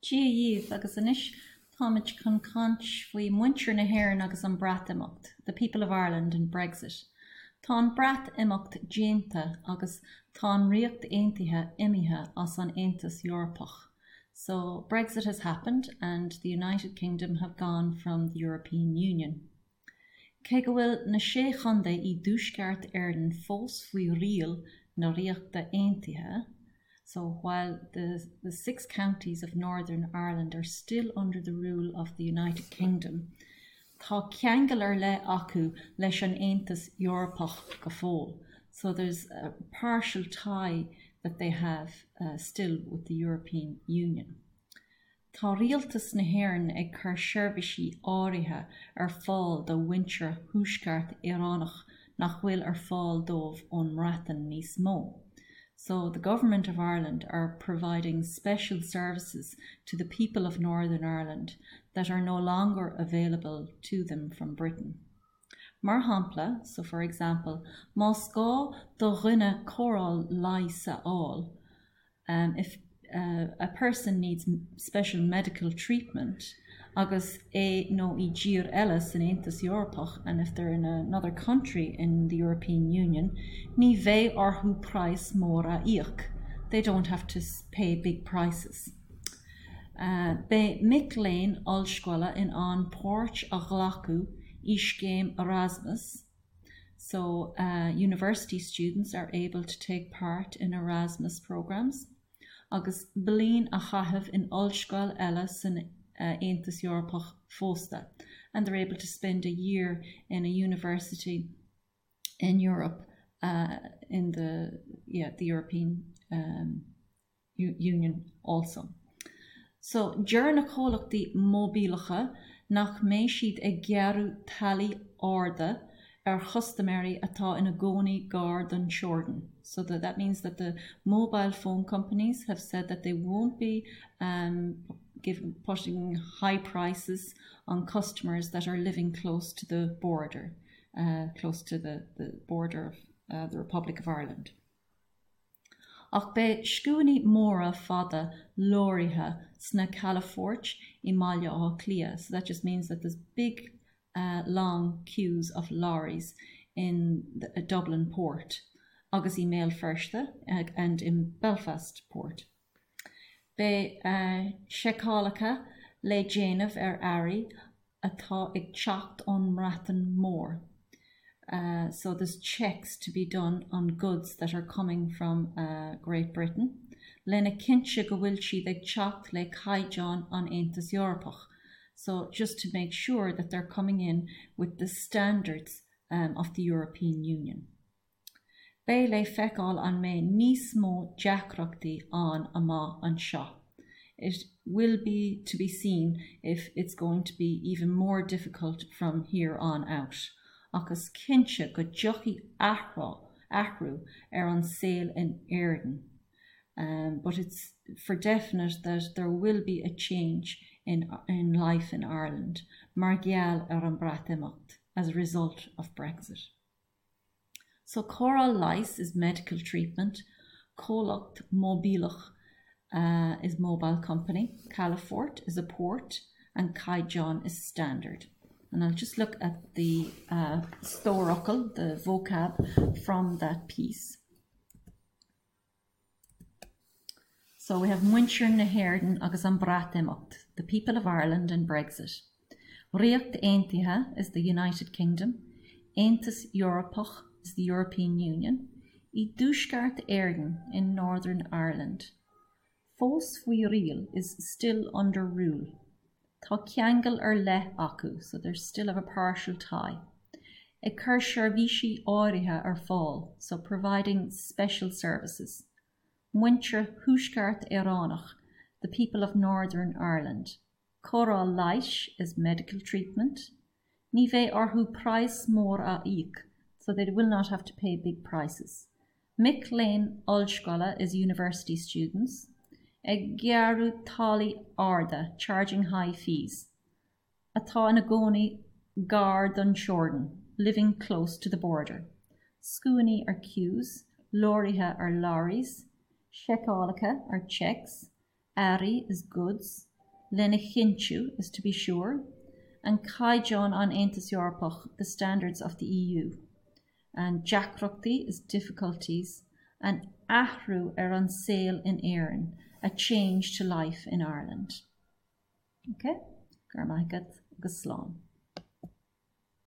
Dia dhaoibh, agus anois táimid chun caint faoi muintir na hÉireann agus an Breatimeacht, the people of Ireland and Brexit. Tá an Breatimeacht déanta agus tá an Ríocht Aontaithe imithe as an Aontas Eorpach. So, Brexit has happened and the United Kingdom have gone from the European Union. Cé go bhfuil na Sé Chontae i dTuaisceart Éireann fós faoi riail na Ríochta Aontaithe, so while the the six counties of Northern Ireland are still under the rule of the United Kingdom, tá ceangal ar leith acu leis an Aontas Eorpach go fóill, so there's a partial tie that they have still with the European Union. Tá Rialtas na hÉireann ag cur seirbhísí áirithe ar fáil do mhuintir Thuaisceart Éireannach nach bhfuil ar fáil dóibh ón mBreatain níos mó. So the Government of Ireland are providing special services to the people of Northern Ireland that are no longer available to them from Britain. Mar shampla, so for example, más gá do dhuine cóireáil leighis a fháil, um, if uh, a person needs special medical treatment agus é nó í i dtír eile san Aontas Eorpach and if they're in another country in the European Union, ní bheidh orthu praghas mór a íoc. They don't have to pay big prices. Uh, beidh mic léinn ollscoile in ann páirt a ghlacadh i scéim Erasmus, So uh, university students are able to take part in Erasmus programs agus bliain a chaitheamh in ollscoil eile san uh, Aontas Eorpach fosta, and they're able to spend a year in a university in Europe uh, in the yeah the European um, Union also. So deir na comhlachtaí móibíleacha nach mbeidh siad ag gearradh táillí arda ar chustaiméirí atá ina gcónaí gar don teorainn. So that, that means that the mobile phone companies have said that they won't be um, give, putting high prices on customers that are living close to the border, uh, close to the, the border of uh, the Republic of Ireland. Ach beidh scuainí móra fada leoraithe sna calafoirt i mBaile Átha Cliath, so that just means that there's big uh, long queues of lorries in the, uh, Dublin port agus i mBéal Feirste uh, and in Belfast port. Beidh uh, seiceálacha le déanamh ar earraí atá ag teacht ón mBreatain Mhór. Uh, so there's checks to be done on goods that are coming from uh, Great Britain, lena chinntiú go bhfuil siad ag teacht le caighdeáin an Aontas Eorpach. So just to make sure that they're coming in with the standards um, of the European Union. Beidh le feiceáil an mbeidh níos mó deacrachtaí ann amach anseo. It will be to be seen if it's going to be even more difficult from here on out. Ach is cinnte go dtiocfaidh athrú athrú ar an saol in Éirinn. Um, but it's for definite that there will be a change in, in life in Ireland mar gheall ar an Breatimeacht as a result of Brexit. So cóireáil leighis is medical treatment, comhlacht móibíleach uh, is mobile company, Calafort is a port, and caighdeán is standard. And I'll just look at the uh, stór the vocab from that piece. So we have Muintir na hÉireann agus an Breatimeacht, the people of Ireland and Brexit. Ríocht Aontaithe is the United Kingdom, Aontas Eorpach is the European Union, i dTuaisceart Éireann in Northern Ireland. Fós faoi riail is still under rule. Tá ceangal ar leith acu, so they still have a partial tie. Ag cur seirbhísí áirithe ar fáil, so providing special services. Muintir Thuaisceart Éireannach, the people of Northern Ireland. Cóireáil leighis is medical treatment. Ní bheidh orthu praghas mór a íoc, so they will not have to pay big prices. Mic léinn ollscoile is university students. Ag gearradh táillí arda, charging high fees. Atá ina gcónaí gar don teorainn, living close to the border. Scuainí are queues, leoraithe are lorries, seiceálacha are checks, earraí is goods, Lena chinntiú is to be sure. An caighdeán an Aontas Eorpach the standards of the EU. An deacrachtaí is difficulties. An athrú ar an saol in Éirinn a change to life in Ireland. Ok? Go raibh maith agat agus slán.